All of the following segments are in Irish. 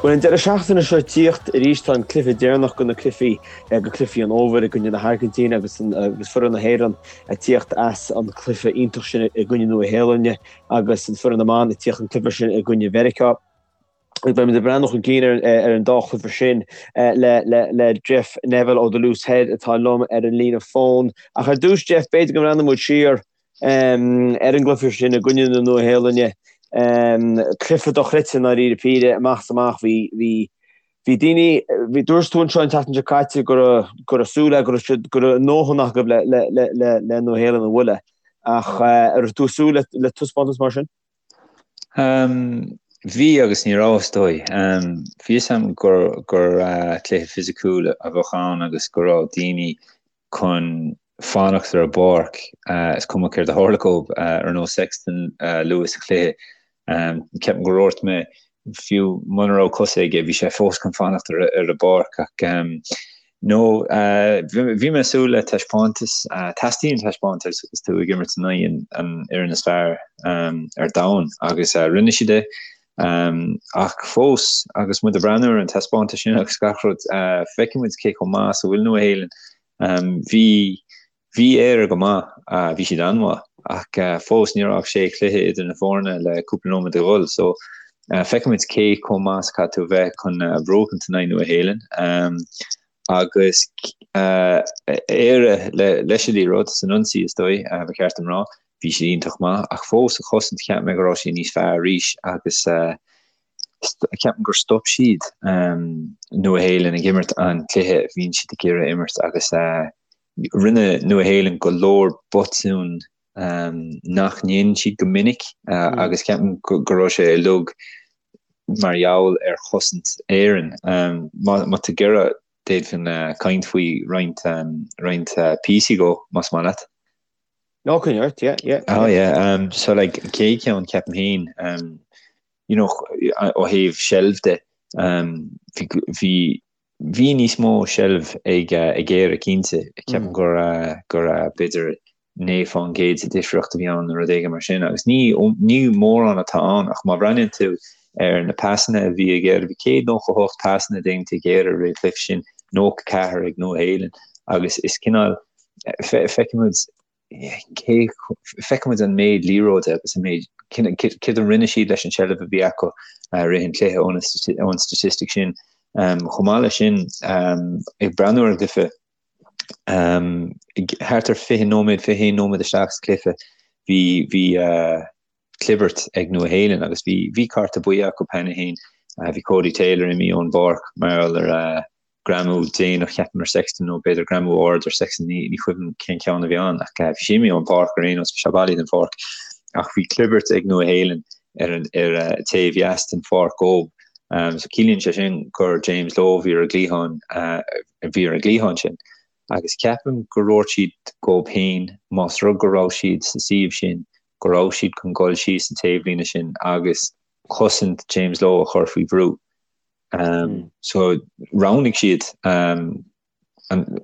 Bhuel, an deireadh seachtaine seo ag tíocht arís tá an cluiche deireanach de na cluichí, de chluichí an fhómhair i gcoinne na hAirgintíne agus agus foireann na hÉireann ag tíocht as an cluiche iontach sin i gcoinne Nua Shéalainne agus an foireann na mban ag tíocht an cluiche sin i gcoinne Mheiriceá. Beimid ag breathnú chun cinn ar an dá chluiche sin le Jeff Neville ó The Loose Head atá liom ar an líne fóin. Ach ar dtús, Jeff, b'fhéidir go mbreathnóidh muid siar ar an gcluiche sin i gcoinne na Nua-Shéalainne. Cluiche dochreidte i ndáiríre píre, amach is amach. Bhí, bhí, bhí daoine, bhí, dúirt tú anseo an tseachtain seo caite go raibh, go raibh súil agat go raibh siad, go raibh a ndóthain acu le, le, le, le, le Nua-Shéalainn a bhualadh. Ach an raibh tú ag súil le, le taispeántas mar sin? Bhí agus ní raibh, is dóigh. Bhí fhios a'm gur gur cluiche fisiciúil a bheadh ann agus go raibh daoine chun fanacht ar an bpáirc, is cuma céard a tharla dhóibh, ar nós Sexton luath sa chluiche. Ceapaim gur dhúirt mé fiú muna raibh cosa aige, bhí sé fós chun fanacht ar an bpáirc ach no, bhí mé ag súil le taispeántas. Teastaíonn taispeántas agus tú ag imirt in aghaidh an fhoireann is fearr ar domhan agus rinne siad é. Ach fós, agus muid ag breathnú ar an taispeántas sin agus gach rud, feicfidh muid cé chomh maith is a bhfuil Nua-Shéalainn. Bhí Bhí Éire go maith, bhí siad an-mhaith, ach fós ní raibh ach sé chluiche idir na foirne le cúpla nóiméad a dhul, so feicfimid cé chomh maith is a chaithfidh tú a bheith chun buachaint in aghaidh Nua Shéalainn. Agus Éire leis an liathróid san ionsaí is dóigh, ba cheart dom rá, bhí siad iontach maith, ach fós sa chosaint cheap mé go raibh siad níos fearr arís agus ceapaim gur stop siad Nua Shéalainn ag imirt an cluiche a bhíonn siad ag iarraidh imirt agus Rinne Nua Shéalainn go leor botún nach ndéanann siad go minic agus ceapaim go raibh sé uilig mar gheall ar chosaint Éireann. Má tá tú ag iarraidh, d'fhéadfainn caint faoi roinnt roinnt píosaí dhó, más maith leat. No, coinnigh ort, yeah, yeah. Oh yeah, so like an chéad cheann ceapaim féin, you know, ó thaobh seilbh de, bhí Bhí níos mó seilbh ag Éire cinnte. Ceapaim gur gur b'fhéidir 9% de difríocht a bhí ann nó rud éigin mar sin agus ní ní mórán atá ann ach má bhreathnaíonn tú ar na pasanna a bhí ag Éire, bhí 198 pasanna déanta ag Éire i rith an chluiche sin, 94 ag Nua Shéalainn agus is cineál feicimid cé feicimid an méid liathróide agus an méid céard a rinne siad leis an seilbh a bhí acu i rith an chluiche ón statistic sin. Chomh maith leis sin, ag breathnú ar an gcluiche, thart ar 20 nóiméad, 21 nóiméad isteach sa chluiche, bhí bhí clibirt ag Nua Shéalainn agus bhí bhí cárta buí acu cheana féin. Bhí Codie Taylor imithe ón bpáirc mar gheall ar greamú déanach cheapaim ar Sexton nó b'fhéidir greamú ard ar Sexton, ní ní cuimhin cén ceann a bhí ann ach bhí sé imithe ón bpáirc ar aon nós, bhí sé bailithe den pháirc. Ach bhí clibirt ag Nua Shéalainn ar an ar taobh dheas den pháirc dhób. So ciallaíonn sé sin gur James Lowe a bhí ar an gcliathán a bhí ar an gcliathán sin. Agus ceapaim gur dhúirt siad dhób féin más rud go raibh siad sa suíomh sin go raibh siad chun dul síos an taobhlíne sin agus cosaint James Lowe a chur faoi bhrú. So roghnaigh siad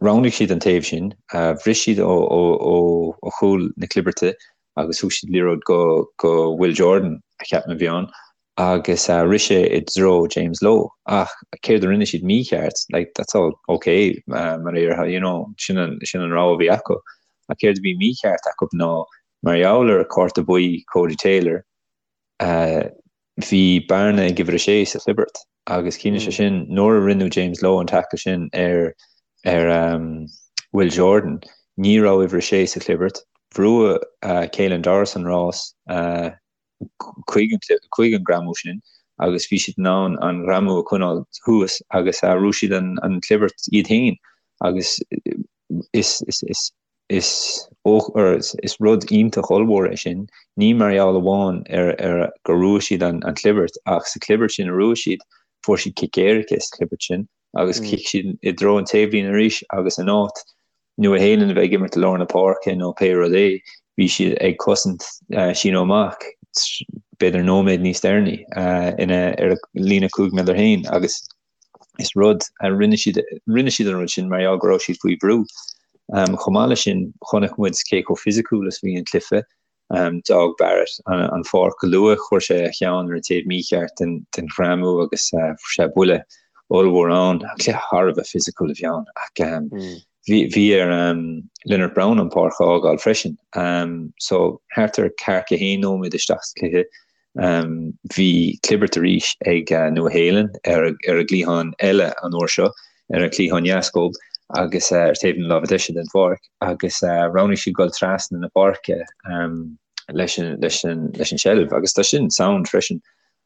roghnaigh siad an taobh sin, bhris siad ó ó chúl na clibirte agus thug siad liathróid go go Will Jordan a cheapaim a bhí ann agus rith sé i dtreo James Lowe ach céard a rinne siad mícheart, like that's all ok mar a déarfá, you know, sin an sin an rogha a bhí acu ach céard a bhí mícheart acu ná mar gheall ar cárta buí Codie Taylor, bhí bearna ag uimhir a sé sa chlibirt agus ciallaíonn sé sin nuair a rinne James Lowe an tackle sin ar ar Will Jordan, ní raibh uimhir a sé sa chlibirt, bhrúigh Caelan Doris an rás chuig chuig an greamú sin agus bhí siad in ann an greamú a choinneáil thuas agus bhrúigh siad an an chlibirt iad féin agus is is is Is is rud iontach ollmhór é sin, ní mar gheall amháin ar ar gur bhrúigh siad an chlibirt ach sa chlibirt sin a bhrúigh siad, fuair siad cic éirice sa chlibirt sin agus chic siad i dtreo an taobhlíne arís agus in áit Nua Shéalainn a bheith ag imirt i lár na páirce nó pé rud é, bhí siad ag cosaint síneadh amach b'fhéidir nóiméad níos deireanaí ina ar a líne 5 méadar féin agus Is rud a rinne siad, rinne siad an rud sin mar gheall go raibh siad faoi bhrú. Chomh maith leis sin, chonaic muid cé chomh fisiciúil is a bhí an cluiche. D'fhág Barrett an pháirc go luath, chuir sé a cheann ar an taobh mícheart den ghreamú agus fuair sé buille ollmhór ann. Cluiche thar a bheith fisiciúil a bhí ann ach bhí ar Lienert-Brown an pháirc a fhágáil freisin. So thart ar ceathracha haon nóiméad isteach sa chluiche Bhí clibirt arís ag Nua Shéalainn ar a gcliathán eile an uair seo, ar an chliathán dheas dhób agus ar taobh na láimhe deise den pháirc agus roghnaigh siad dul trasna na páirce leis an seilbh agus tá sin sound freisin.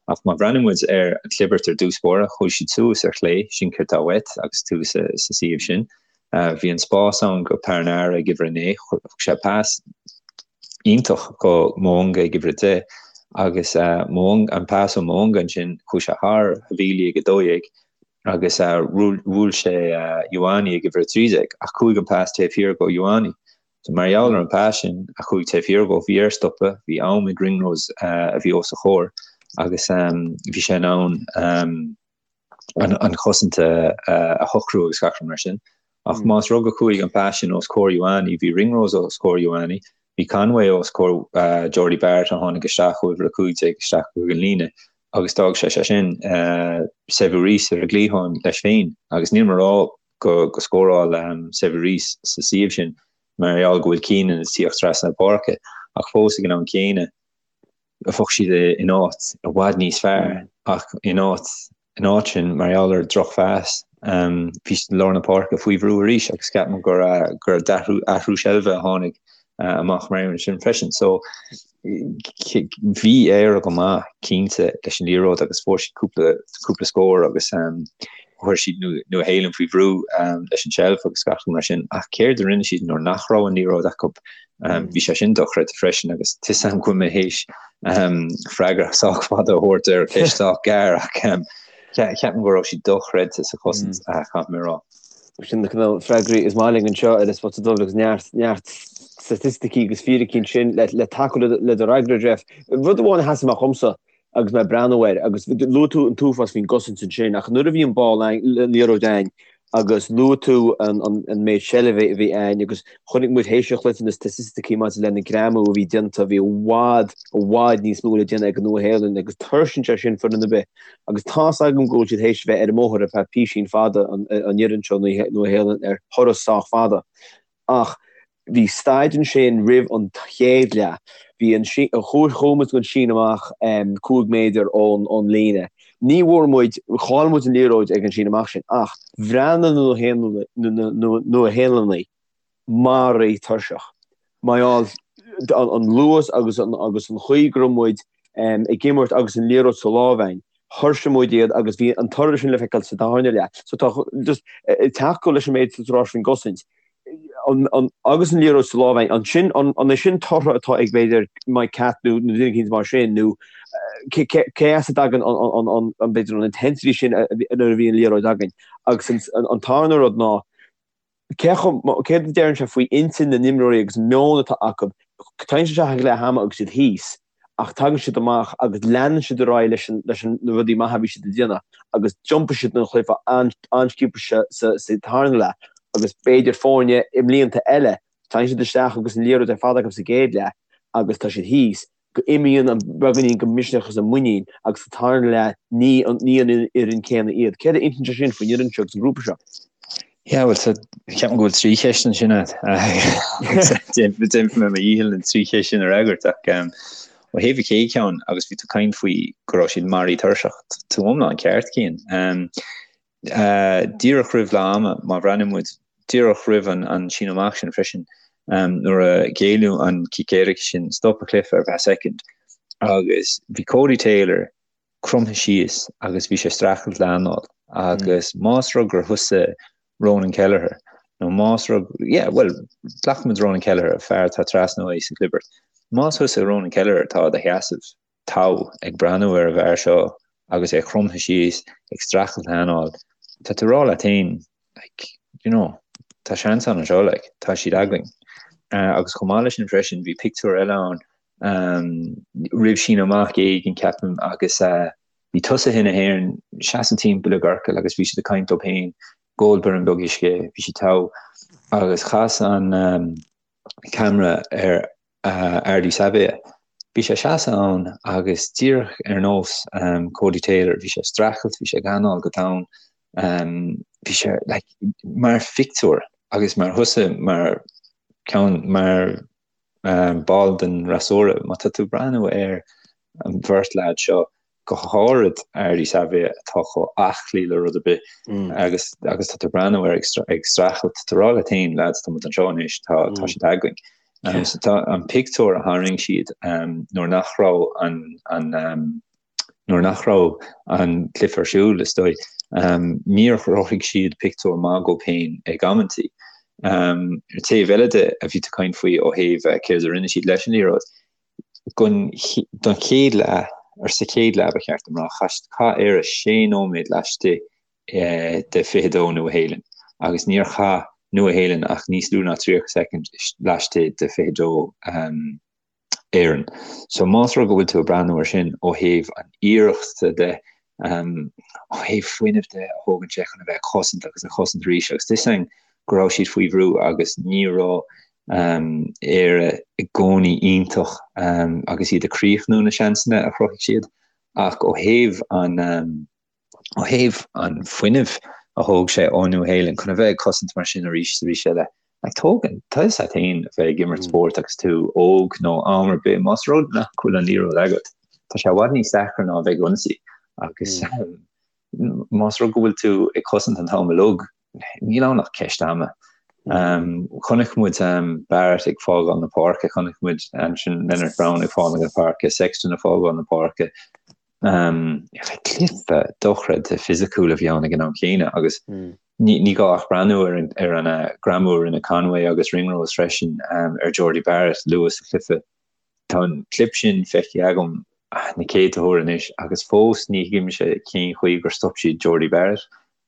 Ach má bhreathnaíonn muid ar an chlibirt ar dtús báire, chuaigh siad suas ar chlé, sin céard atá uait agus tú sa suíomh sin. Bhí an spás ann go Perenara ag uimhir a 9, thug sé pas iontach go Mo'unga ag uimhir 10 agus Mo'unga, an pas ó Mo'unga ansin, chuaigh sé thar Havili ag 12 agus bhuail sé Ioane ag uimhir 13 ach chuaigh an pas taobh thiar go Ioane. So mar gheall ar an pas sin a chuaigh taobh thiar dhó, bhí air stopadh, bhí am ag Ringrose a bhí os a chomhair agus bhí sé in ann an chosaint a shocrú agus gach rud mar sin. Ach más rud go chuaigh an pas sin os comhair Ioane, bhí Ringrose os comhair Ioane, bhí Conway os comhair Jordie Barrett a tháinig isteach ó uimhir 15 isteach chuig an líne agus d'fhág sé sé sin Sevu Reece ar an gcliathán leis féin agus níl mé ag rá go go scóráil Sevu Reece sa suíomh sin mar gheall go bhfuil Keenan ag tíocht trasna na páirce ach fós ag an am céanna bheadh siad in áit i bhfad níos fearr ach in áit in áit sin mar gheall ar drochphas bhí siad i lár na páirce faoi bhrú arís agus ceapaim gur gur athrú athrú seilbhe a tháinig amach mar aon sin freisin. So bhí Éire go maith cinnte leis an liathróid agus fuair siad cúpla cúpla scór agus chuir siad Nua Shéalainn faoi bhrú leis an tseilbh agus gach rud mar sin ach céard a rinne siad nuair nach raibh an liathróid acu Bhí sé sin dochreidte freisin agus tá 'fhios a'm go bhfuil mé théis freagra sách fada a thabhairt ar cheist sách gearr ach ceapaim go raibh siad dochreidte sa chosaint, caithfidh mé a rá. Sin na cineál freagraí is maith linn anseo ar An Spota Dubh agus neart neart staitisticí agus fíricí ansin le tacú le do fhreagra, Jeff. Rud amháin a sheas amach dhomsa agus mé ag breathnú air, agus luaigh tú an t-uafás faoin gcosaint ansin, ach nuair a bhí an ball an liathróid a'ainn agus luaigh tú an méid seilbhe a bhí a'ainn agus chonaic muid théis an chluiche na staitisticí maidir le na greamú a bhí déanta, bhí i bhfad, i bhfad níos mó le déanamh ag an Nua-Shéalainn agus tuirseann sé sin foireann ar bith agus tá's agam go bhfuil siad théis bheith ar an mbóthar ar feadh písín fada an fhoireann seo Nua-Shéalainn ar thuras sách fada ach Bhí staid ansin roimh an chéad leath. Bhí an, chuaigh muid don síneadh amach 5 méadar ón líne. Ní bhfuair muid, chaill muid an liathróid ag an síneadh amach sin ach bhreathnaigh na Nua-Shéalannaigh maraithe tuirseach. Mar gheall an luas agus an chaoi go raibh muid ag imirt agus an liathróid sa lámh a'ainn, thuirsigh muid iad agus bhí an toradh sin le feiceáil sa darna leath. So tá just ag tacú leis an méid atá tú a rá faoin gcosaint. agus an liathróid sa lámh a'ainn, ansin, an é sin tortha atá ag b'fhéidir Mike Catt nó duine eicínt mar sin nó cé as a dtagann an b'fhéidir an intensity sin nuair a bhí an liathróid againn? Agus an tarna rud ná cé chomh, céard a deireann sé faoi intinn na n-imreoirí agus an meon atá acu, tagann siad isteach ag leath ama agus iad thíos. ach tagann siad amach agus leanann siad ar aghaidh leis an leis na rudaí maithe a bhí siad ag déanamh agus d'iompaigh siad an chluiche an-sciobtha sa sa tarna leath agus b'fhéidir foirne i mblianta eile tagann siad isteach agus an liathróid ar fad acu sa gcéad leath agus tá siad thíos go imíonn an beagáinín de mhisneach agus an muinín agus sa tarna leath ní an ní an fhoireann céanna iad. Céard a insíonn sé sin faoin fhoireann seo agus an grúpa seo? Yeah, well, so, ceapaim go bhfuil 3 cheist ansin agat. Déanfaidh mé mo dhícheall na 3 cheist sin a fhreagairt ach um, ó thaobh an chéad cheann agus bhí tú ag caint faoi go raibh siad maraithe tuirseach, tú iomlán ceart Cian. Um, uh, díreach roimh leath ama, má bhreathnaíonn muid díreach roimh an, an síneadh amach sin freisin, um, nuair a géilleadh an cic éirice sin, stop an cluiche ar feadh soicind agus bhí Codie Taylor cromtha síos agus bhí sé ag streachailt le anáil agus más rud gur thusa Ronan Kelleher nó más rud, yeah, bhuel, glacfaimid Ronan Kelleher, fear atá trasna uaidh sa chlibirt, más thusa Ronan Kelleher atá i do sheasamh togha ag breathnú ar an bhfear seo agus é cromtha síos ag streachailt le hanáil, tá tú ag rá leat féin, like, you know, tá seans ann anseo, like, tá siad againn. Uh, agus chomh maith leis sin freisin, bhí pictiúr eile ann roimh síneadh amach éigin, ceapaim, agus bhí tosaithe na hÉireann seasamh timpeall i gciorcal agus bhí siad ag caint dóibh féin, ag ól braon beag uisce, bhí siad togha, agus chas an ceamara ar. Ardie Savea. Bhí sé ag seasamh ann agus díreach ar nós Codie Taylor, bhí sé ag streachailt, bhí sé ag anáil go domhain, bhí sé like mar phictiúr agus mar thusa mar ceann mar ball den fhreasúra, má tá tú ag breathnú ar an bheirt leaid seo, go háirid Ardie Savea atá chomh aclaí le rud ar bith agus agus tá tú ag breathnú air ag streachailt, tá tú ag rá leat féin, lads, tá muid anseo anois, tá tá siad againn. So tá an pictiúr a tharraing siad nuair nach raibh an an nuair nach raibh an cluiche ar siúl, is dóigh, níor chruthaigh siad pictiúr maith dóibh féin ag amantaí. Ar taobh eile de a bhí tú ag caint faoi ó thaobh céard a rinne siad leis an liathróid, Don chéad leath, or sa chéad leath ba cheart dom rá, chaith Éire sé nóiméad laistigh de 22 Nua-Shéalainn agus níor chaith Nua-Shéalainn ach níos lú ná 30 soicind laistigh de 22 Éireann. So más rud go bhfuil tú ag breathnú ar sin ó thaobh an iarrachta de, ó thaobh fuinnimh de a thógann sé chun a bheith ag cosaint agus ag cosaint arís agus tá a fhios againn go raibh siad faoi bhrú agus ní raibh Éire i gcónaí iontach agus iad ag críochnú na seansanna a chruthaigh siad ach ó thaobh an ó thaobh an fuinnimh a thóg sé ó Nua-Shéalainn chun a bheith ag cosaint mar sin arís is arís eile, like tógann, tá a fhios agat féin a bheith ag imirt spóirt agus tú óg nó am ar bith, más rud nach bhfuil an liathróid agat, tá sé i bhfad níos deacra ná a bheith ag ionsaí agus más rud go bhfuil tú ag cosaint an t-am uilig, níl ann ach ceist ama. Chonaic muid Barrett ag fágáil na páirce, chonaic muid ansin Lienert-Brown ag fágáil na páirce, Sexton ag fágáil na páirce. Cluiche dochreidte fisiciúil a bhí ann ag an am chéanna agus ní gá ach breathnú ar an ar an greamú a rinne Conway agus Ringrose freisin ar Jordie Barrett luath sa chluiche. Tá an clip sin feicthe agam na céadta huair anois agus fós ní thuigimse cén chaoi gur stop siad Jordie Barrett.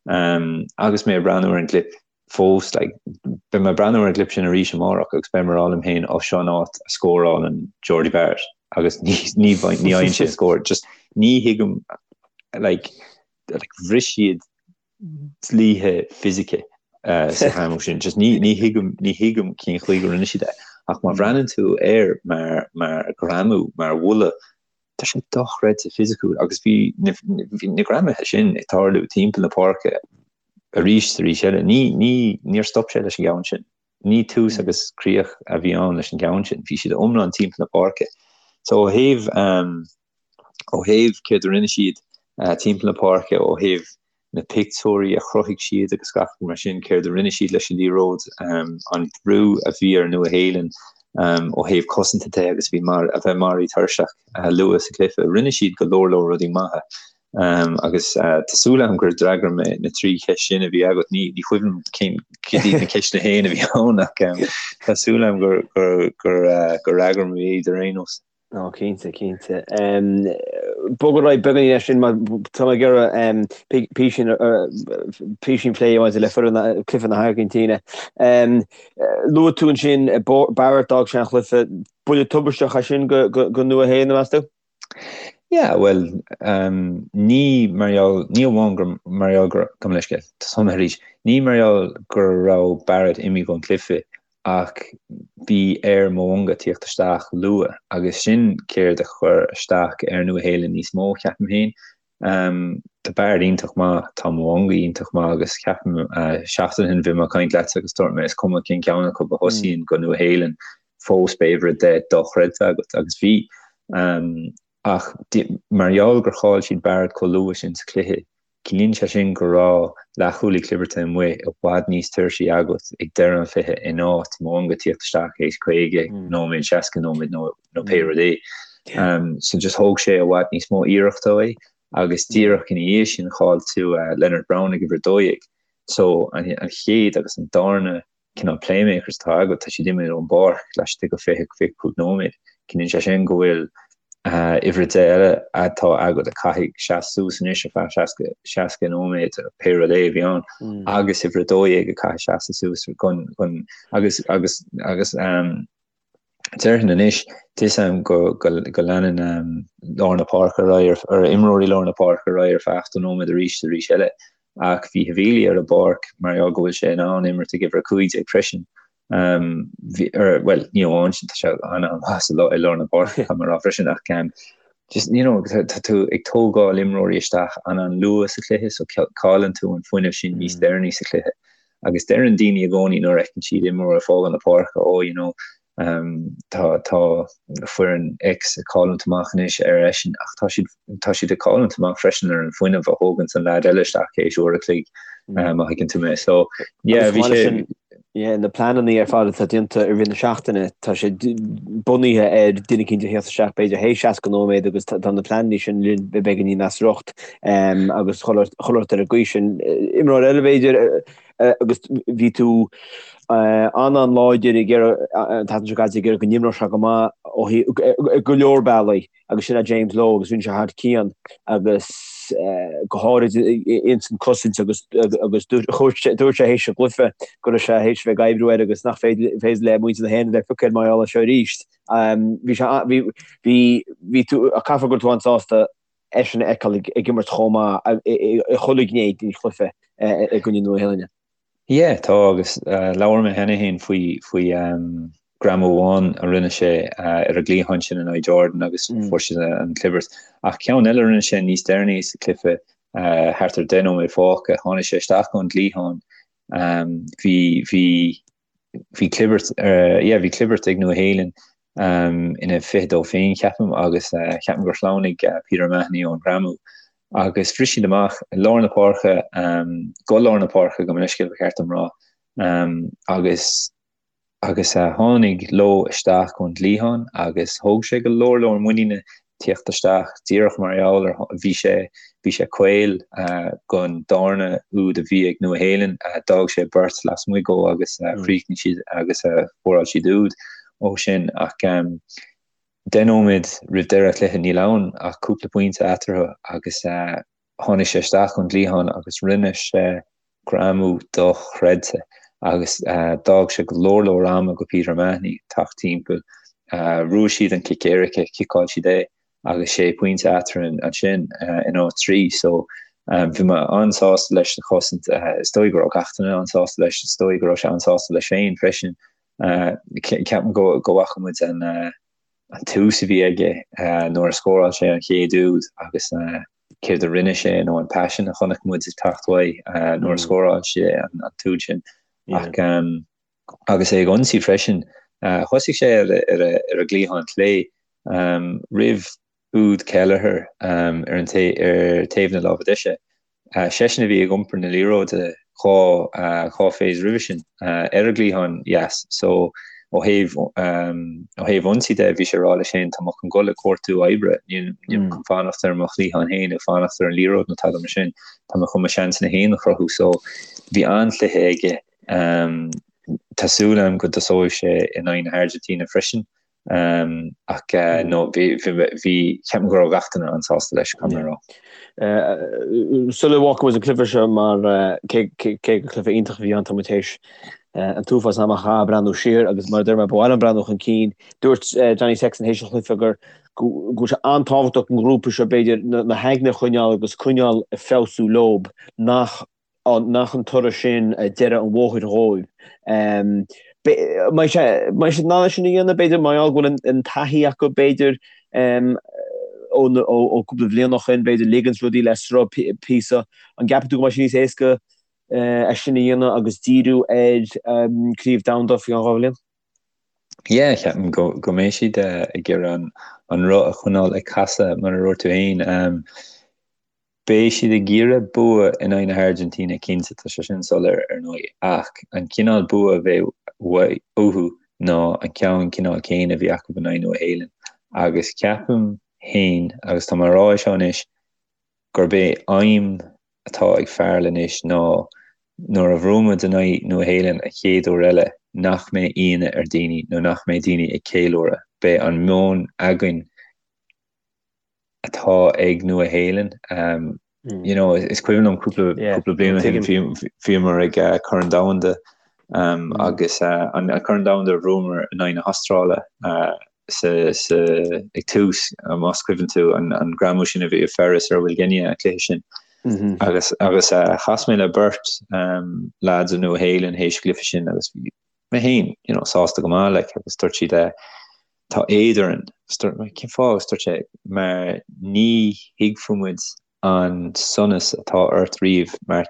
Agus mé ag breathnú ar an gclip fós, like, beidh mé ag breathnú ar an gclip sin arís amárach agus beidh mé ag rá liom féin, ó seo an áit a scórálann Jordie Barrett agus ní ní ní fhaigheann sé scór. Just ní thuigim like, like bhris siad dlíthe fisice sa ghreamú sin. Just ní ní thuigim ní thuigim cén chaoi go rinne siad é. Ach má bhreathnaíonn tú air mar mar ghreamú, mar bhuille, Tá sé dochreidte fisiciúil agus bhí na bhí na greamuithe sin ag tarlú timpeall na páirce arís is arís eile. Ní ní níor stop sé leis an gceann sin. Ní tús agus críoch a bhí ann leis an gceann sin. Bhí siad iomlán timpeall na páirce. So ó thaobh ó thaobh céard a rinne siad timpeall na páirce, ó thaobh na pictiúirí a chruthaigh siad agus gach rud mar sin, céard a rinne siad leis an liathróid, an brú a bhí ar Nua-Shéalainn ó thaobh cosanta de agus bhí mar a bheith maraithe tuirseach luath sa chluiche. Rinne siad go leor leor rudaí maithe agus tá súil agam gur d'fhreagair mé na trí cheist sin a bhí agat. Ní ní cuimhin cén cad iad na ceisteanna féin a bhí ann ach tá súil agam gur gur gur gur fhreagair mé iad ar aon nós. Ó, cinnte, cinnte. Bog ar aghaidh beagáinín leis sin mar tá mé ag iarraidh písín písín plé maidir le foireann cluiche na hAirgintíne. Luaigh tú ansin Barrett d'fhág sé an chluiche. Buille tubaisteach é sin go Nua-Shéalainn, meas tú? Yeah, bhuel, ní mar gheall, ní amháin gur mar gheall gur, gabh mo leithscéal, tosóidh mé arís, ní mar gheall go raibh Barrett imithe ón cluiche ach bhí ar Mo'unga tíocht isteach luath agus sin céard a chuir isteach ar Nua-Shéalainn níos mó, ceapaim féin. Tá Barrett iontach maith, tá Mo'unga iontach maith agus ceapaim seachtain ó shin bhí mé ag caint leatsa agus dúirt mé is cuma cén ceann acu a thosaíonn go Nua-Shéalainn fós beidh uimhir 10 dochreidte agat agus bhí. Ach mar gheall gur chaill siad Barrett chomh luath sin sa chluiche, Ciallaíonn sé sin go raibh leathchúlaí clibirte amuigh i bhfad níos tuirsí agat ag deireadh an chluiche in áit Mo'unga tíocht isteach théis 50 nóiméad, 60 nóiméad nó pé rud é. So just thóg sé i bhfad níos mó iarrachta uaidh agus díreach ina dhiaidh sin chaill tú Lienert-Brown ag uimhir 12. So an chéad agus an darna cineál playmakers atá agat, tá siad imithe ón bpáirc laistigh de 20, 25 nóiméad. Ciallaíonn sé sin go bhfuil uimhir 10 eile atá agat a chaithfidh seasamh suas anois ar feadh 60, 60 nóiméad, pé rud é a bhí ann, agus uimhir 12 a chaithfidh seasamh suas chun, chun, agus, agus, agus déarfainn anois, tá a fhios agam go, go, go leanann lár na páirce ar aghaidh, ar imreoirí lár na páirce ar aghaidh ar feadh 80 nóiméad arís is arís eile. Ach bhí Havili ar an bpáirc mar gheall go bhfuil sé in ann imirt ag uimhir 15 freisin. Bhí, bhuel, ní amháin sin, tá sé an-an-mhaith sa i lár na páirce, caithfidh mé a rá freisin, ach just, you know, tá tú ag tógáil imreoirí isteach an-an-luath sa chluiche, so cailleann tú an fuinneamh sin níos deireanaí sa chluiche. Agus deireann daoine i gcónaí nuair a fheiceann siad imreoir ag fágáil na páirce, oh, you know, tá tá foireann X ag cailliúint amach anois ar eisean, ach tá siad tá siad ag cailliúint amach freisin ar an fuinneamh a thóganns an leaid eile isteach théis uair a chloig, má thuigeann tú mé. So, yeah, bhí sé. Yeah, na pleananna ar fad atá déanta i rith na seachtaine, tá sé bunaithe ar duine eicínt a theacht isteach b'fhéidir théis 60 nóiméad agus tá na pleananna sin linn beagáinín as riocht agus dhul ort ar an gcaoi sin. Imreoir eile b'fhéidir agus bhí tú an-an-láidir ag iarraidh an tseachtain seo caite ag iarraidh go n-imreodh sé go maith ó thaobh go leor bealaí. agus sin é James Lowe agus rinne sé thar cionn agus go háirid ins an cosaint agus agus dúirt sé théis an chluiche go raibh sé théis bheith ag oibriú air agus nach féidir le muintir na hÉireann a bheith ag piocadh air mar gheall air seo arís. Bhí sé bhí bhí bhí tú caithfidh go raibh tú an-sásta eisean a fheiceáil ag imirt chomh maith i chuile ghné den chluiche i gcoinne Nua-Shéalainne. Yeah, tá, agus labhair mé cheana féin faoi, faoi greamú amháin a rinne sé ar an gcliathán sin in aghaidh Jordan agus fuair siad an clibirt. Ach ceann eile a rinne sé níos deireanaí sa chluiche, thart ar 10 nóiméad fágtha, tháinig sé isteach ón gcliathán, bhí, bhí, bhí clibirt, yeah, bhí clibirt ag Nua Shéalainn ina 22 féin, ceapaim, agus ceapaim gur shleamhnaigh Peter O'Mahony ón ghreamú agus bhris siad amach i lár na páirce, go lár na páirce gabh mo leithscéal ba cheart dom rá, agus agus tháinig Lowe isteach ón gcliathán agus thóg sé go leor leor muiníne tíocht isteach díreach mar gheall ar bhí sé bhí sé caol gon darna úd a bhí ag Nua Shéalainn, d'fhág sé beirt lasmuigh dhó agus chríochnaigh siad agus scóráil siad úd ó sin ach 10 nóiméad roimh deireadh an chluiche níl ann ach cúpla pointe eatarthu agus Tháinig sé isteach ón gcliathán agus rinne sé greamú dochreidte agus d'fhág sé go leor leor ama go Peter O'Mahony teacht timpeall. Bhuaigh siad an cic éirice, chiceáil siad é agus sé pointe eatarthu ansin in áit 3. So bhí mé an-sásta leis sa chosaint. Is dóigh go raibh gach duine an-sásta leis, is dóigh go raibh sé an-sásta leis féin freisin. Ceapaim go bhfaca muid an an tús a bhí aige nuair a scóráil sé an chéad úd agus céard a rinne sé nó an paisean a chonaic muid ag teacht uaidh nuair a scóráil sé an t-úd sin. Ach agus é ag ionsaí freisin, thosaigh sé ar ar an gcliathán clé roimh úd Kelleher ar an ar taobh na láimhe deise. Seisean a bhí ag iompar na liathróide 2 2 phase roimhe sin ar an gcliathán dheas so ó thaobh ó thaobh ionsaí de bhí sé ag rá leis féin tá mé chun dul ag cuartú oibre, níl mé chun fanacht ar mo chliathán féin ag fanacht ar an liathróid nó tada mar sin, tá mé chun mo sheansanna féin a chruthú so bhí an-chluiche aige. Tá súil agam go dtosóidh sé in aghaidh na hAirgintíne freisin. Ach no, bhí, bhí, ceapaim go raibh gach duine an-sásta leis, caithfidh mé a rá. Sula bhfágfaidh muid an cluiche seo mar cé gur cluiche iontach a bhí ann, tá muid théis an t-uafás ama a chaitheamh ag breathnú siar agus mar a deir mé, ba mhaith liom breathnú chun cinn. Dúirt Johnny Sexton théis an chluiche gur go bhfuil sé an-tábhachtach don ghrúpa seo b'fhéidir na haigne a choinneáil agus coinneáil ag feabhsú leob nach nach an toradh sin deireadh an bhóthair dhóibh. Mbeidh siad in ann é sin a dhéanamh, b'fhéidir, mar gheall go bhfuil an taithí acu, b'fhéidir, ó cúpla bhliain ó shin, b'fhéidir, ligeanns rudaí le sruth píosa. An gceapann tú go mbeidh sé níos éasca é sin a dhéanamh agus díriú ar Craobh Domhanda faoi cheann 2 bhliain? Yeah, ceapaim go go mbeidh siad ag iarraidh an roth a choinneáil ag casadh, mar a dúirt tú féin. Beidh siad ag iarraidh bua in aghaidh na hAirgintíne cinnte, tá sé sin soiléir ar ndóigh, ach an cineál bua a bheidh uathu ná an ceann cineál céanna a bhí acu in aghaidh Nua Shéalainn agus ceapaim féin, agus tá mé a rá é seo anois, gurb é aidhm atá ag Farrell anois ná nuair a bhuafaidh muid in aghaidh Nua Shéalainn an chéad uair eile nach mbeidh ionadh ar daoine nó nach mbeidh daoine ag ceiliúradh, beidh an meon againn atá ag Nua Shéalainn. You know, is cuimhin liom cúpla cúpla bliain ó shin bhíomar ag Corn Domhanda agus an Corn Domhanda a bhuamar in aghaidh na hAstráile sa sa ag tús más cuimhin tú an an greamú sin a bhí ag Ferris ar Will Genia an cluiche sin. Agus agus chas mé le beirt lads ó Nua Shéalainn théis an chluiche sin agus bhí. mé féin, you know, sásta go maith, like, agus dúirt siad, eh, tá éad orainn. Agus dúirt mé, cén fáth? Agus dúirt sé, mar ní thuigfeadh muid an sonas atá ort riamh mar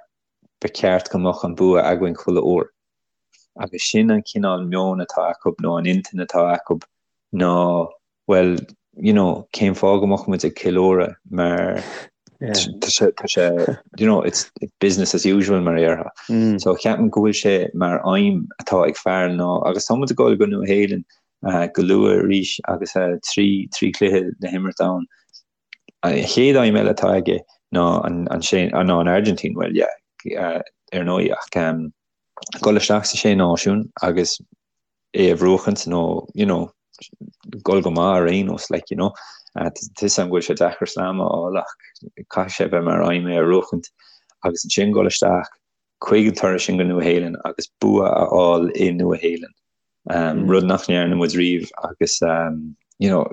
ba cheart go mbeadh an bua againn chuile uair. Agus sin an cineál meoin atá acu nó an intinn atá acu ná bhuel, you know, cén fáth go mbeadh muid ag ceiliúradh mar tá sé, tá sé, you know, it's business as usual mar a déarfá. Mm. So ceapaim go bhfuil sé mar aidhm atá ag Farrell ná, agus tá muid ag dul go Nua Shéalainn uh, go luath arís agus uh, 3 3 cluiche le himirt ann. An chéad aidhm eile atá aige ná an, an, sé, ná an Argentina, well, yeah, uh, ar ndóigh ach um, dul isteach sa sé náisiún agus é a bhuachaint nó you know dul go maith ar aon nós like you know. Tá fhios agam go bhfuil sé deacair slam a fháil ach caithfidh sé bheith mar aidhm é a bhuachaint agus ansin dul isteach chuig an turas sin go Nua Shéalainn agus bua a fháil i Nua Shéalainn. Um, rud nach ndearna muid riamh agus um, you know,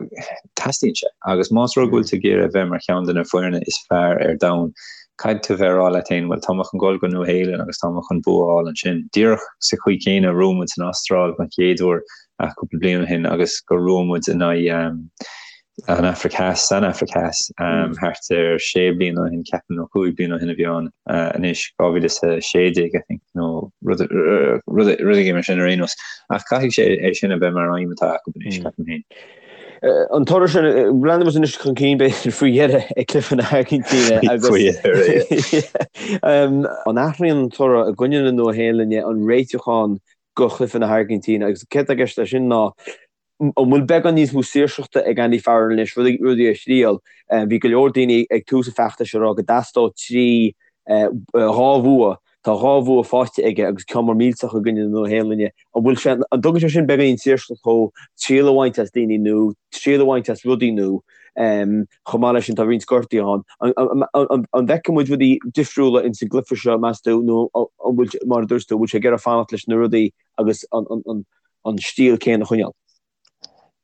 teastaíonn sé. Agus más rud go bhfuil tú ag iarraidh a bheith mar cheann de na foirne is fearr ar domhan, caithfidh tú bheith ag rá leat féin, bhuel, tá mé chun dul go Nua Shéalainn agus tá mé chun bua a fháil ansin. Díreach sa chaoi chéanna a bhuaigh muid san Astráil don chéad uair cúpla bliain ó shin agus gur bhuaigh muid in aghaidh an Afraic Theas, san Afraic Theas, thart ar sé bliana ó shin, ceapaim, nó cúig bliana ó shin a bhí ann anois, 2016, I think, nó rud éigin mar sin ar aon nós. Ach caithfidh sé é sin a bheith mar aidhm atá acu anois, ceapaim féin. An toradh sin, breathnaíonn muid anois chun cinn b'fhéidir faoi dheireadh ag cluiche na hAirgintíne agus Faoi dheireadh, an athraíonn an toradh i gcoinne na Nua-Shéalainne an réitiúchán go chluiche na hAirgintíne agus céard atá i gceist leis sin ná An bhfuil beagán níos mó saoirseachta ag Andy Farrell anois rudaí a thriail? Bhí go leor daoine ag tús an feachtais ag rá go dteastódh 3, 2 bhua. Tá 2 bhua faighte aige agus ceann mór millteach i gcoinne na Nua-Shéalainne. An bhfuil sé, an dtugann sé sin beagáinín saoirseachta dó triail a bhaint as daoine nó triail a bhaint as rudaí nó chomh maith leis sin tá roinnt gortuithe ann. An bhfeicfidh muid rudaí difriúla ins an gcluiche seo meas tú nó an bhfuil, mar a dúirt tú, an bhfuil sé ag iarraidh fanacht leis na rudaí agus an an stíl céanna a choinneáil.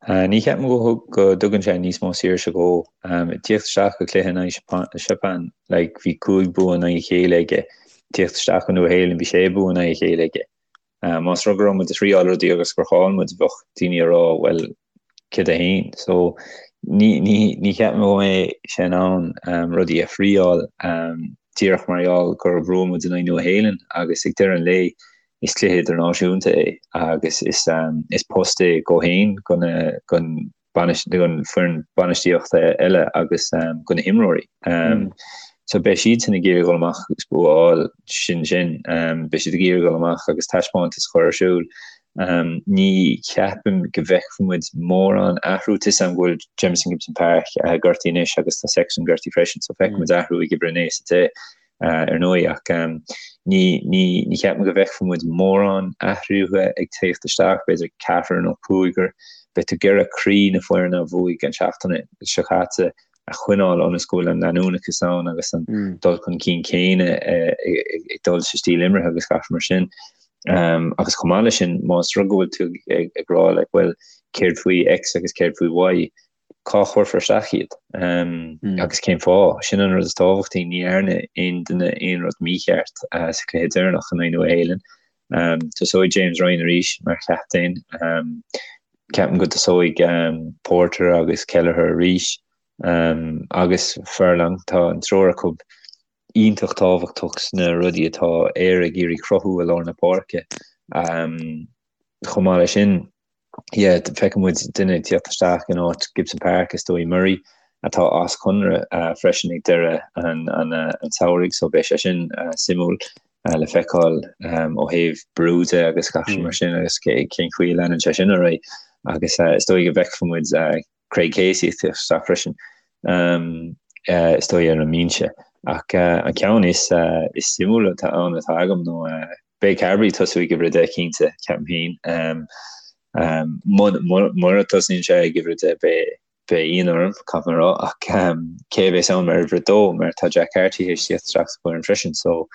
Ní cheapaim go go dtugann sé níos mó saoirse dhó. Ag tíocht isteach go cluiche in aghaidh Seapáin, like, bhí 5 bua in aghaidh a chéile aige. Ag tíocht isteach go Nua Shéalainn, bhí sé bua in aghaidh a chéile aige. Más rud go raibh muid ag triáil rudaí agus gur chaill muid, bheadh daoine ag rá, well, céard é féin? So, ní, ní, ní cheapaim go mbeidh sé in ann rudaí a thriáil díreach mar gheall gur bhuaigh muid in aghaidh Nua Shéalainn agus ag deireadh an lae, Is cluiche idirnáisiúnta é agus is post é dhó féin, don foireann bainistíochta eile agus do na himreoirí. So beidh siadsan ag iarraidh dul amach agus bua a fháil, sin sin. Beidh siad ag iarraidh dul amach agus taispeántas a chur ar siúl. Ní cheapaim go bhfeicfidh muid mórán athrú. Tá 'fhios a'm go bhfuil Jamison Gibson-Park gortaithe anois agus tá Sexton gortaithe freisin, so feicfidh muid athrú ag uimhir a 9 is a 10. ar ndóigh, ach ní ní cheapaim go bhfeicfidh muid mórán athruithe ag teacht isteach, b'fhéidir ceathrar nó cúigear. Beidh tú ag iarraidh croí na foirne a bhuaigh an tseachtain seo caite a choinneáil ionas go bhfuil an leanúnachas ann agus an dul chun cinn céanna ag dul sa stíl imeartha agus gach mar sin. Agus chomh maith leis sin, más rud go bhfuil tú ag rá like, well, céard faoi X agus céard faoi Y, cá chuirfear isteach iad agus cén fáth? Sin an rud is tábhachtaí, ní dhearna aon duine aon rud mícheart sa chluiche deireanach in aghaidh Nua Shéalainn. Tosóidh James Ryan arís mar chaptaen. Ceapaim go dtosóidh Porter agus Kelleher arís agus Furlong. Tá an triúr acu iontach tábhachtach sna rudaí atá Éire ag iarraidh cruthú i lár na páirce. Chomh maith leis sin, yeah, feicfidh muid duine ag tíocht isteach in áit Gibson Park, is dóigh Murray, atá as conradh freisin ag deireadh an tsamhraidh, so beidh sé sin suimiúil le feiceáil ó thaobh brú de agus gach mar sin agus cén chaoi a leanann sé sin ar aghaidh. Agus is dóigh go bhfeicfidh muid Craig Casey ag tíocht isteach freisin, is dóigh ar an mbinse. Ach an ceann is suimiúla atá ann atá agam nó beidh Carbery ag tosú ag uimhir a 10 cinnte, ceapaim féin. Mura dtosaíonn sé ag uimhir a 10 beidh beidh ionadh orm, caithfidh mé a rá, ach cé a bheas ann mar uimhir a 2 mar tá Jack Carty théis tíocht isteach sa bhfoireann freisin so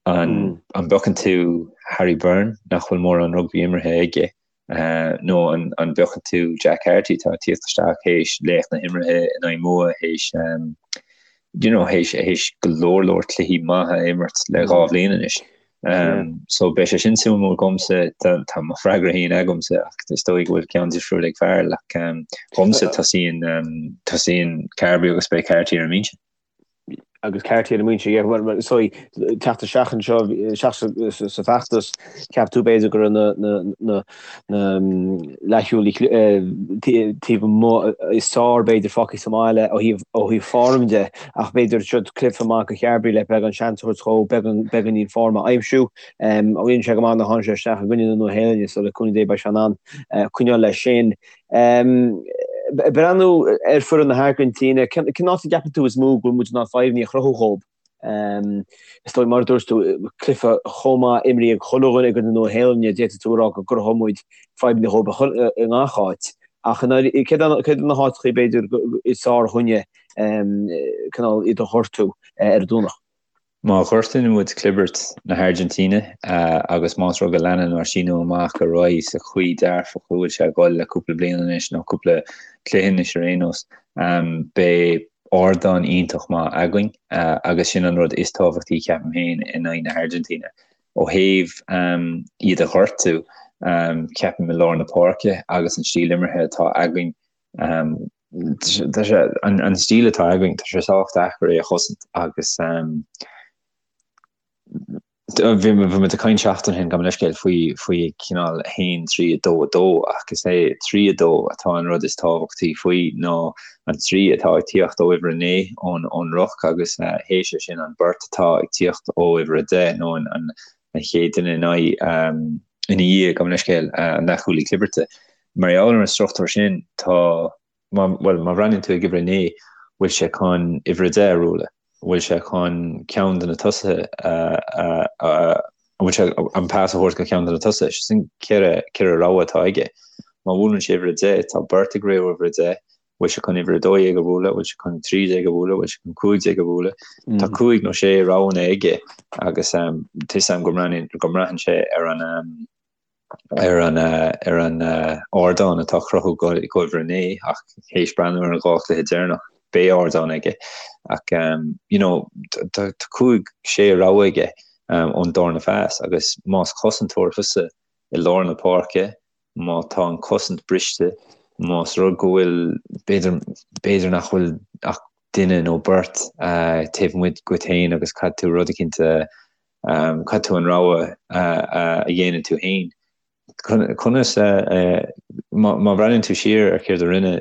an bpiocann tú Harry Byrne nach bhfuil mórán rugbaí imeartha aige Nó an bpiocann tú Jack Carty atá ag tíocht isteach théis laoch na himeartha in aghaidh Mumha, théis you know, théis, théis go leor leor cluichí maithe a imirt le 2 bhliain anois. So beidh sé sin suimiúil dhomsa, tá mo freagra féin agamsa ach is dóigh go bhfuil ceann difriúil ag Fearghal ach dhomsa tosaíonn tosaíonn Carbery agus beidh Carty ar an mbinse. Agus Carty ar an mbinse, yeah, well, so teacht isteach anseo, isteach sa feachtas, cheap tú b'fhéidir go raibh na, na, na, na leathsheolaí taobh amuigh is fearr b'fhéidir fágtha sa mbaile ó thaobh ó thaobh form de ach b'fhéidir seo cluiche maith do Charbery le beagán seans a thabhairt dhó beagán beagáinín form a aimsiú. Rinne sé go maith nuair a tháinig sé isteach i gcoinne na Nua-Shéalainne so le cúnamh Dé beidh sé in ann coinneáil leis sin. Breathnú ar foireann na hAirgintíne, cén áit a gceapann tú is mó go bhfuil muid in ann fadhbanna a chruthú dhóibh? Is dóigh, mar a dúirt tú, cluiche chomh maith imrithe ag chuile dhuine i gcoinne na Nua-Shéalainne, d'fhéadfadh tú a rá go gcruthódh muid fadhbanna dhóibh i ngach áit. Ach céard iad na háiteacha b'fhéidir is fearr dhúinne cineál iad a ghortú ar an Domhnach? Má ghortaíonn muid clibirt na hAirgintíne agus más rud go leanann ár síniú amach ar aghaidh sa chaoi dearfach a bhfuil sé ag dul le cúpla bliain anois, nó cúpla cluiche anois ar aon nós, beidh ardán iontach maith againn agus sin an rud is tábhachtaí ceapaim féin in aghaidh na hAirgintíne. Ó thaobh iad a ghortú, ceapaim i lár na páirce agus an stíl imeartha atá againn, tá sé, an stíl atá againn, tá sé sách deacair é a chosaint agus bhí muid ag caint seachtain ó shin, gabh mo leithscéal, faoi faoi cineál 1, 3, 2, 2 ach is é 3, 2 atá an rud is tábhachtaí faoi ná an 3 atá ag tíocht ó uimhir 9 ón ón ruc agus théis é sin an beirt atá ag tíocht ó uimhir 10 nó an an chéad duine in aghaidh ina dhiaidh, gabh mo leithscéal, an leathchúlaí clibirte. Mar gheall ar an struchtúr sin, tá, má, bhuel, má bhreathnaíonn tú ag uimhir 9, bhfuil sé chun uimhir 10 a bhualadh? Bhfuil sé chun ceann de na tosaithe a, a, a, bhfuil sé an pas a thabhairt go ceann de na tosaithe? Sin ceithre, ceithre rogha atá aige. Má bhuaileann sé uimhir 10, tá beirt ag rith ó uimhir 10, bhfuil sé chun uimhir 12 a bhualadh, bhfuil sé chun 13 a bhualadh, bhfuil sé chun 15 a bhualadh? Tá cúig nó sé roghanna aige agus tá 'fhios a'm go mbraitheann, go mbraitheann sé ar an, ar an ar an ardán atá á chruthú go uimhir 9 ach théis breathnú ar an dhá chluiche deireanach beidh ardán aige ach you know tá cúig sé rogha aige ón darna phas agus más cosantóir thusa i lár na páirce má tá an cosaint briste más rud go bhfuil b'fhéidir b'fhéidir nach bhfuil ach duine nó beirt taobh amuigh dhuit féin agus caithfidh tú rud eicínt a Caithfidh tú an rogha a dhéanamh tú féin. Conas, má bhreathnaíonn tú siar ar céard a rinne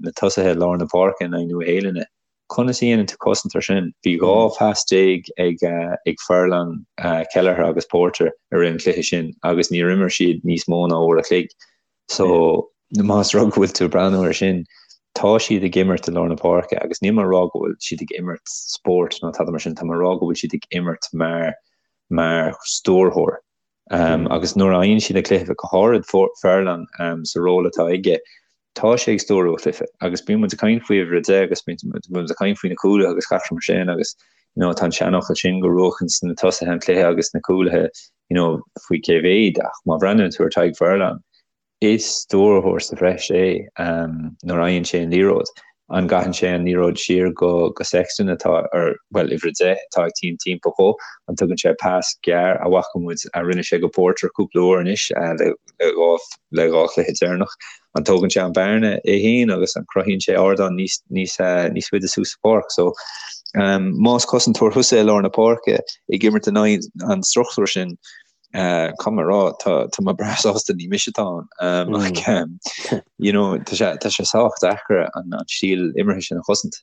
na tosaithe lár na páirce in aghaidh Nua-Shéalainne, conas a dhéanann tú cosaint ar sin? Bhí 12 phas ag Furlong, Kelleher agus Porter i rith an chluiche sin agus níor imir siad níos mó ná uair a chloig. So, más rud go bhfuil tú ag breathnú ar sin, tá siad ag imirt i lár na páirce agus níl mé ag rá go bhfuil siad ag imirt spóirt nó tada mar sin, tá mé ag rá go bhfuil siad ag imirt mar mar stiúrthóir. Um, agus nuair a fhaigheann siad an cluiche go háirid Furlong um, sa ról atá aige, tá sé ag stiúrú an chluiche agus bíonn muid ag caint faoi uimhir a 10 agus bíonn muid ag caint faoi na cúlaithe agus gach rud mar sin agus you know, tá an seanfhocal sin go mbuachann na tosaithe an cluiche agus na cúlaithe you know, faoi cé mhéad, ach má bhreathnaíonn tú ar Tadhg Furlong, is stiúrthóir sa bhreis é nuair a fhaigheann sé an liathróid. An gcaitheann sé an liathróid siar go go Sexton atá ar, bhuel, uimhir a 10 atá ag tíocht timpeall dhó, an dtugann sé pas gearr a bhfaca muid a rinne sé go Porter cúpla uair anois le le dhá chluiche deireanach. An dtógann sé an bearna é féin agus an cruthaíonn sé ardán níos níos níos faide suas sa pháirc. So más cosantóir thusa i lár na páirce ag imirt in aghaidh an struchtúir sin, caithfidh mé a rá tá tá mé breá sásta ní mise atá ann. Ach you know tá sé tá sé sách deacair an an stíl imeartha sin a chosaint.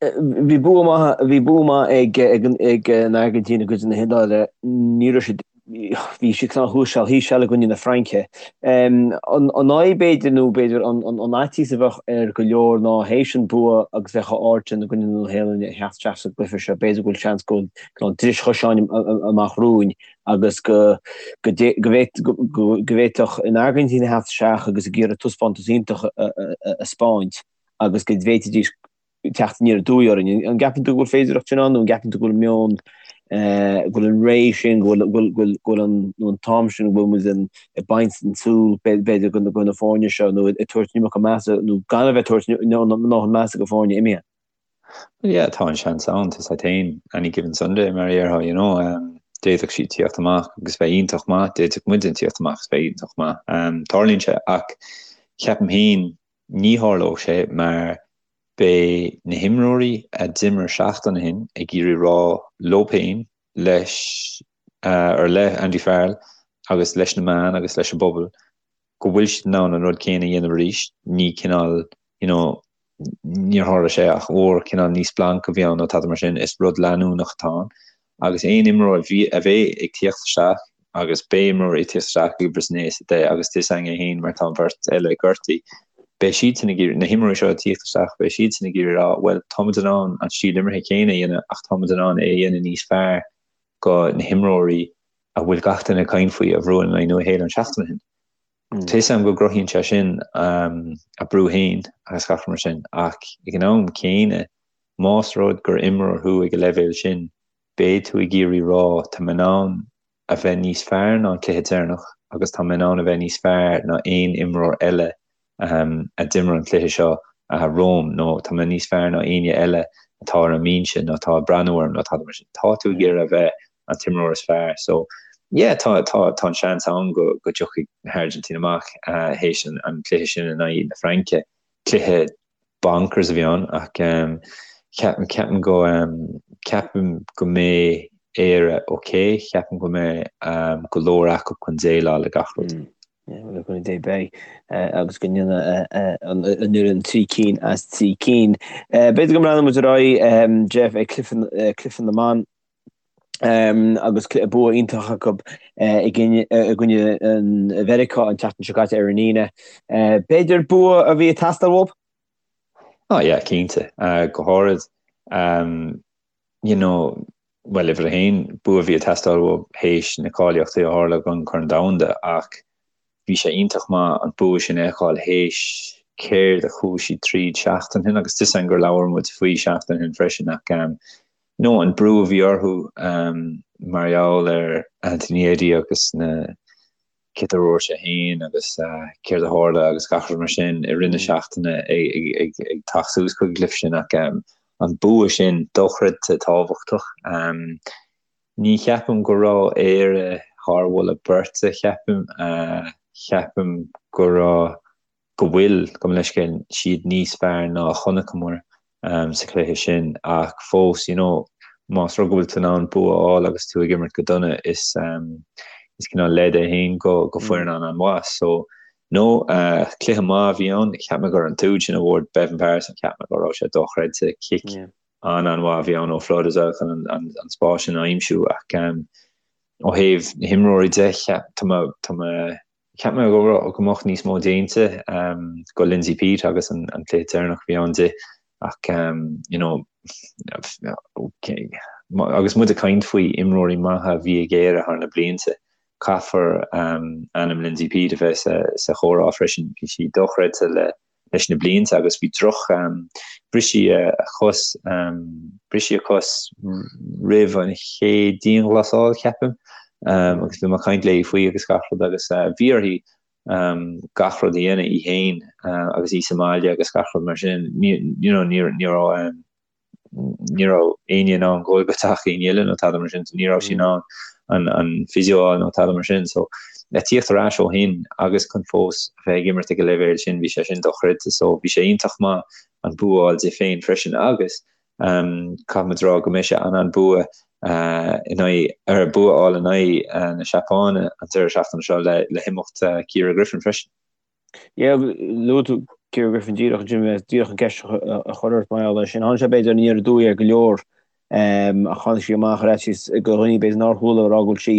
Bhí bua maith, bhí bua maith ag ag an Airgintín i gcoinne na hIodáile. Ní raibh siad, bhí siad cineál thuas seal thíos seal i gcoinne na Fraince. An fhadhb b'fhéidir nó b'fhéidir an fhaitíos a bheadh ar go leor ná théis an bua agus bheadh a ard sin i gcoinne na Nua-Shéalainne a theacht isteach sa gcluiche seo, b'fhéidir go bhfuil seans go bhfuil dris choiseáin amach romhainn agus go go bhféadfadh an Airgintín a theacht isteach agus ag iarraidh taispeántas iontach a 'speáint agus go bhféadfaidís teacht aniar aduaidh orainn. An gceapann tú go bhfuil féidearthacht sin ann nó an gceapann tú go bhfuil meon, go bhfuil an ré sin, go bhfuil go bhfuil an nó an t-am sin go bhfuil muid ag baint den tsúil b'fhéidir go na foirne seo nó ag tabhairt an iomarca measa nó gan a bheith ag tabhairt ndóthain measa go foirne imithe? Well yeah, tá an seans ann, tá sé féin any given Sunday mar a déarfá, you know. D'fhéadfadh siad tíocht amach agus bheith iontach maith, d'fhéadfadh muidne tíocht amach agus bheith iontach maith. Tarlaíonn sé ach ceapaim féin ní tharlódh sé mar beidh na himreoirí a d'imir seachtain ó shin ag iarraidh rá leo féin, leis, or le Andy Farrell agus leis na meáin agus leis an bpobal go bhfuil siad in ann an rud céanna a dhéanamh arís, ní cineál, you know, níor tharla sé ach uair, cineál ní splanc a bhí ann nó tada mar sin, is rud leanúnach atá ann. Agus aon imreoir a bheidh ag tíocht isteach, agus beidh imreoirí ag tíocht isteach ag uimhir a 9 is 10 agus tá a fhios againn é féin mar tá an bheirt eile gortaithe, beidh siadsan ag iarraidh, na himreoirí seo ag tíocht isteach, beidh siadsan ag iarraidh rá, bhuel, táimid in ann an stíl imeartha céanna a dhéanamh ach táimid in ann é a dhéanamh níos fearr go na himreoirí a bhfuil gach duine ag caint faoi a bhuaigh in aghaidh Nua Shéalainn seachtain ó shin. Tá fhios agam go gcruthaíonn sé sin a brú féin agus gach rud mar sin ach ag an am céanna más rud gur imreoir thú ag an leibhéal sin beidh tú ag iarraidh rá tá mé in ann a bheith níos fearr ná an cluiche deireanach agus tá mé in ann a bheith níos fearr ná aon imreoir eile a d'imir an cluiche seo romham nó tá mé níos fearr ná éinne eile atá ar an mbinse nó atá ag breathnú orm nó tada mar sin. Tá tú ag iarraidh a bheith an t-imreoir is fearr. So yeah tá tá tá an seans ann go go dtiocfaidh na hAirgintín amach théis an an cluiche sin in aghaidh na Fraince. Cluiche bonkers a bhí ann ach ceapaim ceapaim go ceapaim go mbeidh Éire ok, ceapaim go mbeidh go leor acu chun déileáil le gach rud. Le cúnamh Dé beidh agus go ndéanfaidh an fhoireann 3 cinn as 3 cinn. B'fhéidir go mbreathnóidh muid ar aghaidh, Jeff, ag cluiche na mban agus bua iontach acu i gcoinne Mheiriceá an tseachtain seo caite ar an Aoine. B'fhéidir bua a bhí ag teastáil uathu? Oh yeah, cinnte. Go háirid, you know, bhuel, uimhir a haon, bua a bhí ag teastáil uathu théis na cáilíochtaí a tharla don Chorn Domhanda ach bhí sé iontach maith an bua sin a fheiceáil théis céard a chuaigh siad tríd seachtain ó shin agus tá fhios againn gur labhair muid faoi seachtain ó shin freisin ach you know an brú a bhí orthu mar gheall ar Anthony Eddie agus na céard a dúirt sé féin agus céard a tharla agus gach rud mar sin i rith na seachtaine ag teacht suas chuig an gcluiche sin ach an bua sin dochreidte tábhachtach. Ní cheapaim go raibh Éire thar mholadh beirte, cheapaim, cheapaim go raibh go bhfuil, gabh mo leithscéal, siad níos fearr ná a chonaiceamar sa chluiche sin ach fós, you know, más rud go bhfuil tú in ann bua a fháil agus tú ag imirt go dona, is is cineál leid é féin go go foireann an an-mhaith. So, no, cluiche maith a bhí ann, cheap mé gur an t-úd sin a bhuaigh Beibhinn Paterson, cheap mé go raibh sé dochreidte, cic an-an-mhaith a bhí ann ó Flood as well chun an an spás sin a aimsiú ach ó thaobh na himreoirí de, cheap, tá mé, tá mé Cheap mé go raibh, go mbeadh níos mó déanta go Lindsay Peat agus an cluiche deireanach a bhí ann di ach you know agus muid ag caint faoi imreoirí maithe a bhí ag Éire thar na blianta, caithfear ainm Lindsay Peat a bheith sa chomhrá freisin. Bhí sí dochreidte le leis na blianta agus bhí droch bhris sí a cos bhris sí a cos roimh an chéad dianghlasáil ceapaim agus bhí mé ag caint léi faoi agus gach rud agus bhí uirthi gach rud a dhéanamh í féin agus í sa mbaile agus gach rud mar sin you know ní ní raibh ní raibh éinne in ann goil go teach éinne eile nó tada mar sin, ní raibh sí in ann an an physio a fháil nó tada mar sin. So le tíocht ar ais ó shin agus chun fós a bheith ag imirt ag an leibhéal sin, bhí sé sin dochreidte. So bhí sé iontach maith an bua a fháil di féin freisin agus um, caithfimid rá go mbeidh sé an an bua uh, in aghaidh ar bua a fháil in aghaidh uh, na Seapáine an deireadh seachtaine seo le, le himeacht uh, Ciara Griffin freisin. Yeah, luaigh tú Ciara Griffin díreach ansin, bhí mé díreach an ceist a chur ort mar gheall air sin. Tháinig sé b'fhéidir aniar aduaidh ar go leor ach tháinig sí amach ar fhaitíos go dhaoine b'fhéidir nár chuala ag rá go bhfuil sí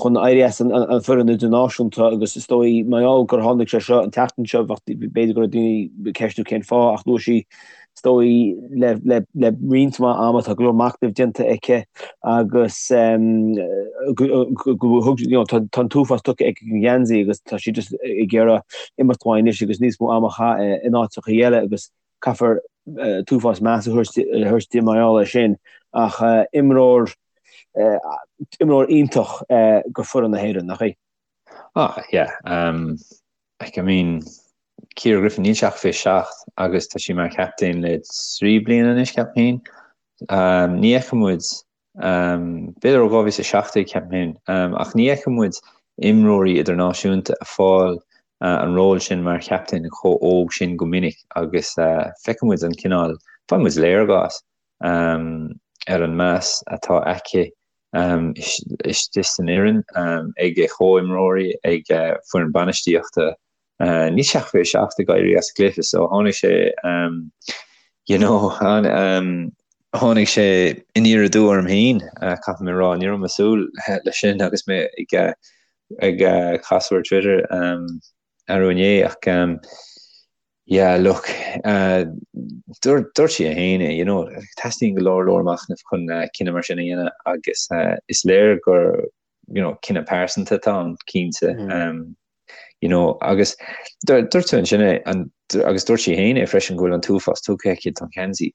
chun éirí as an foireann idirnáisiúnta agus is dóigh mar gheall gur tháinig sé seo an tseachtain seo b'fhéidir go raibh daoine ag ceistiú cén fáth ach luaigh sí Is dóigh le le roinnt mhaith ama tá go leor machnaimh déanta aici agus go thug you know tá an t-uafás tugtha aici don gheansaí agus tá sí just ag iarraidh imeacht uaidh anois agus níos mó ama a chaitheamh in áiteacha eile agus caithfear t-uafás meas a thabhairt di mar gheall air sin ach imreoir imreoir iontach go foireann na hÉireann, nach í? Ah yeah, um, like I mean Ciara Griffin, níl sí ach 27 agus tá sí mar chaptaen le 3 bliana anois, ceapaim féin. Ní fheiceann muid. B'fhéidir ó 2017 ceapaim féin, ach ní fheiceann muid imreoirí idirnáisiúnta ag fáil an ról sin mar chaptaen chomh óg sin go minic agus feiceann muid an cineál, faigheann muid léargas ar an meas atá aici istigh san fhoireann, ag a chomhimreoirí, ag foireann bainistíochta. Níl sé ach 27 ag éirí as an gcluiche so tháinig sé you know tháinig sé aniar aduaidh orm féin caithfidh mé a rá, ní raibh mé ag súil leis sin agus mé ag ag casadh ar Twitter arú inné ach yeah look dúirt sí é féin é you know teastaíonn go leor leor machnaimh chun cinneadh mar sin a dhéanamh agus is léir gur you know cinneadh pearsanta atá ann cinnte. You know, agus dúirt tú ansin é, agus dúirt sí féin é freisin go bhfuil an t-uafás tugtha aici don gheansaí.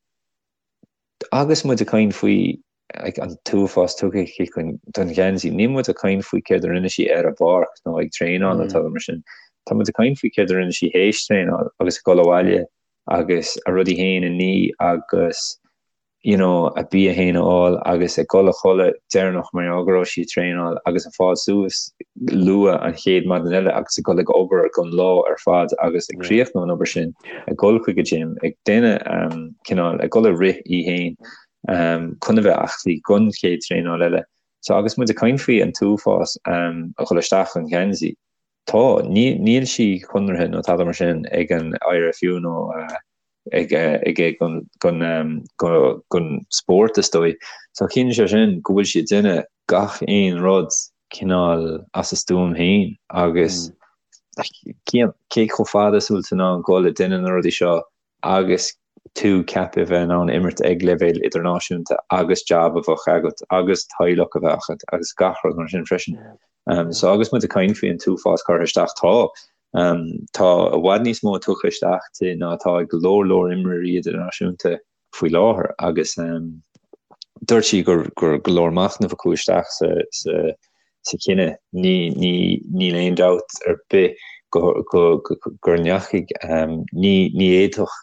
Agus muid ag caint faoi like, an t-uafás tugtha aici don gheansaí, níl muid ag caint faoi céard a rinne sí ar an bpáirc nó ag traenáil nó tada mar sin. Tá muid ag caint faoi céard a rinne sí théis traenáil agus ag dul abhaile agus a rudaí féin a ní agus you know, a bia fhéin a fháil agus ag dul a chodladh deireanach mar gheall go raibh sí ag traenáil agus ag fáil suas luath an chéad maidin eile agus ag dul ag obair don lá ar fad agus ag críochnú an obair sin, ag dul chuig an gym, ag déanamh um, cineál, ag dul ag rith í fhéin um, chun a bheith aclaí don chéad traenáil eile. So agus muid ag caint faoi an t-uafás um, a dhul isteach an gheansaí, tá, níl sí conraithe nó tada mar sin ag an IRFU nó uh, ag ag don spórt is dóigh. So ciallaíonn sé sin go bhfuil sí ag déanamh gach aon rud cineál as a stuaim féin agus cé chomh fada is bhfuil tú in ann dul ag déanamh na rudaí seo agus tú ceaptha a bheith in ann imirt ag leibhéal idirnáisiúnta agus jab a bheith agat agus teaghlach a bheith agat agus gach rud mar sin freisin. So agus muid ag caint faoi an t-uafás curtha isteach tá Tá i bhfad níos mó tugtha isteach di ná atá ag go leor leor imreoirí idirnáisiúnta faoi láthair agus dúirt sí gur go leor machnaimh a chuaigh isteach sa chinneadh. Níl aon dabht ar bith go ndeachaigh, ní fhéadfadh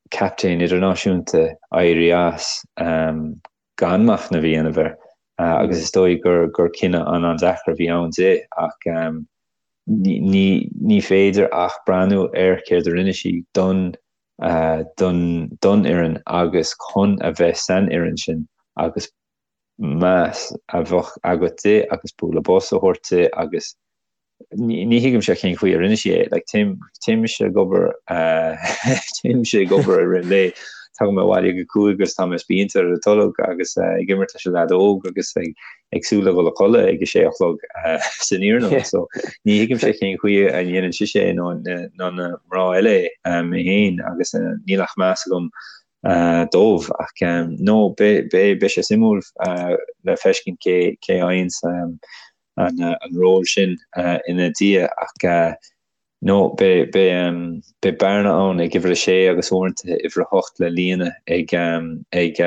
captaen idirnáisiúnta éirí as gan machnamh a dhéanamh air agus is dóigh gur cinneadh an-an-deacair a bhí ann di ach ní féidir ach breathnú ar céard a rinne sí don don don fhoireann agus chun a bheith san fhoireann sin agus meas a bheadh agat di agus bualadh bos a thabhairt di agus ní thuigimse cén chaoi a rinne sí é. Like, téim, téimse ag obair, téimse ag obair i rith an lae, tagaim abhaile ag a 5 agus tá mé spíonta ar an tolg agus ag imirt leis an leaid óg agus ag, ag súil le dhul a chodladh ag a sé a chlog san iarnóin. So, ní thuigimse cén chaoi a ndéanann sise é nó nó na mná eile é, mé féin agus níl ach meas agam dóibh ach no, beidh, beidh, beidh sé suimiúil le feiscint cé, cé a fhaigheanns an ról sin ina diaidh ach no beidh bearna ann ag uimhir a sé agus uaireanta uimhir a hocht le líonadh ag ag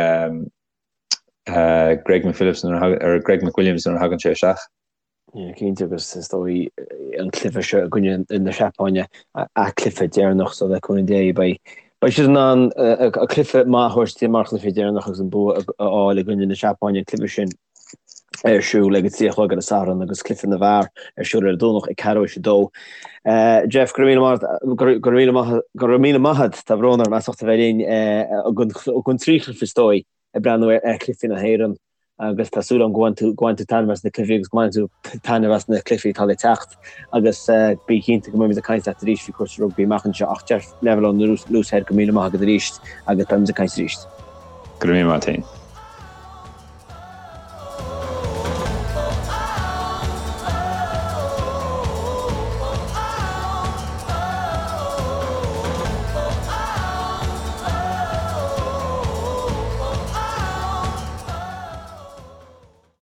Greg McPhillips nuair a Greg McWilliams nuair a thagann sé isteach. Yeah, cinnte agus is dóigh an cluiche seo i gcoinne na Seapáine a cluiche deireanach so le cúnamh Dé beidh beidh siad in ann a cluiche maith a thabhairt mar chluiche deireanach agus an bua a fháil i gcoinne na Seapáine an cluiche sin. ar siúl ag a 3 a chlog ar an Satharn agus cluiche na bhfear ar siúl ar an Domhnach ag ceathrú théis a 2. Jeff, go raibh míle maith, go raibh míle maith, go raibh míle maith agat, tá brón orm as ucht a bheith linn don trí chluiche is dóigh ag breathnú ar chluichí na hÉireann agus tá súil agam go bhain tú, go bhain tú taitneamh as na cluichí agus go mbainfidh tú taitneamh as na cluichí atá le teacht agus bí cinnte go mbeimid ag caint leat arís faoi chúrsaí rugbaí amach anseo ach Jeff Neville ón Luas Thoir, go raibh míle maith agat arís agus beimid ag caint arís. Go raibh míle maith agat féin.